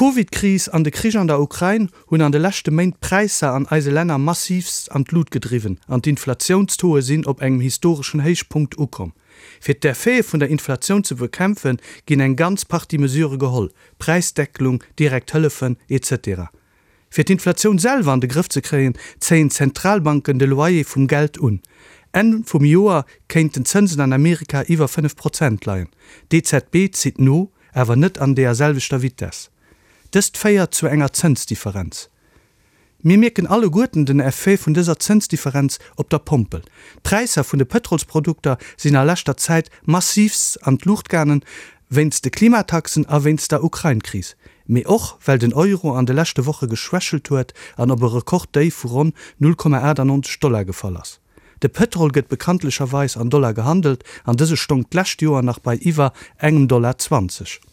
D'Covid-Kris an de Krich an der Ukrain hunn an de leschte Méint d'Präisser an eise Länner massiivst an d'Lut gedriwwen an d'Inflatiounstauxe sinn op engem historeschen Héichpunkt ukomm. Fir d'Effete vun der Inflatioun ze bekämpfen, ginn eng ganz Partie Mesure geholl, Präisdeckelung, direkt Hëllefen, etc. Fir d'Inflatioun selwer an de Grëff ze kréien, zéien d'Zentralbanken de Loyer vum Geld un. Enn vum Joer kéinten d'Zënsen an Amerika iwwer 5 Prozent leien. D'EZB zitt no, awer net an deeër selwechter Vitess. Dëst féiert zu enger Zënsdifferenz. Mir mierken alleguerten den Effet vun dëser Zënsdifferenz op der Pompel. D'Präisser vun de Pëtrolsprodukter sinn a leschter Zäit massiivst an d'Luucht gaangen, wéinst de Klimataxen a wéinst der Ukrain-Kris, mee och well den Euro an de leschte Woche geschwächelt huet an op e Rekorddéif vu ronn 0,98 Dollar gefall ass. De Pëtrol gëtt bekanntlecherweis an Dollar gehandelt an dëse stong d'lescht Joer nach bei iwwer engem Dollar 20.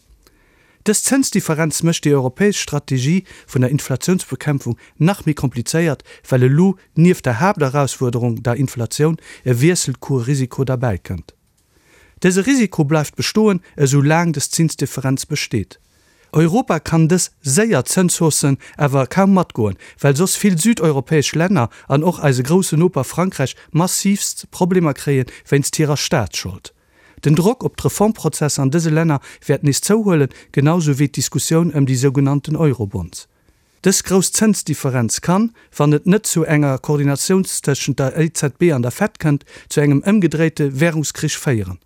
Dës Zënsdifferenz mécht déi europäesch Strategie vun der Inflatiounsbekämpfung nach méi komplizéiert, well elo nieft der Haapterausfuerderung, der Inflatioun, e Wiesselkuerrisiko derbäikënnt. Dëse Risiko bleift bestoen, esou laang dës Zinsdifferenz besteet. Europa kann dës séier Zënshaussen awer kaum matgoen, well soss vill südeuropäesch Länner an och eise grousse Noper Frankräich massiivst Problemer kréie wéinst hirer Staatsschold. Den Drock op d'Reformprozesser an dëse Länner wäert nees zouhuelen, genau sou wéi d'Diskussioun ëm déi sougenannten Eurobonds. Dës grouss Zënsdifferenz kann, wann et net zu enger Koordinatioun tëschent der EZB an der Fed kënnt, zu engem ëmgedréite Währungskrich féieren.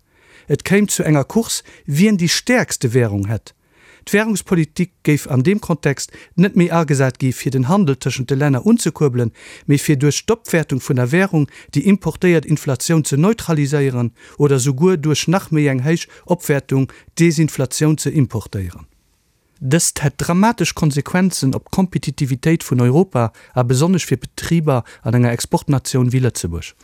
Et kéim zu enger Course, wien déi stäerkste Währung hätt. D'Währungspolitik géif an deem Kontext net méi agesat gi fir den Handel tëschent de Länner unzekuerbelen, mee fir duerch d'Opwäertung vun der Währung déi importéiert Inflatioun ze neutraliséieren oder souguer duerch nach méi eng héich Opwäertung d'Desinflatioun ze importéieren. Dëst hätt dramatesch Konsequenzen op d'Kompetitivitéit vun Europa a besonnesch fir Betriber an enger Exportnatioun wéi Lëtzebuerg.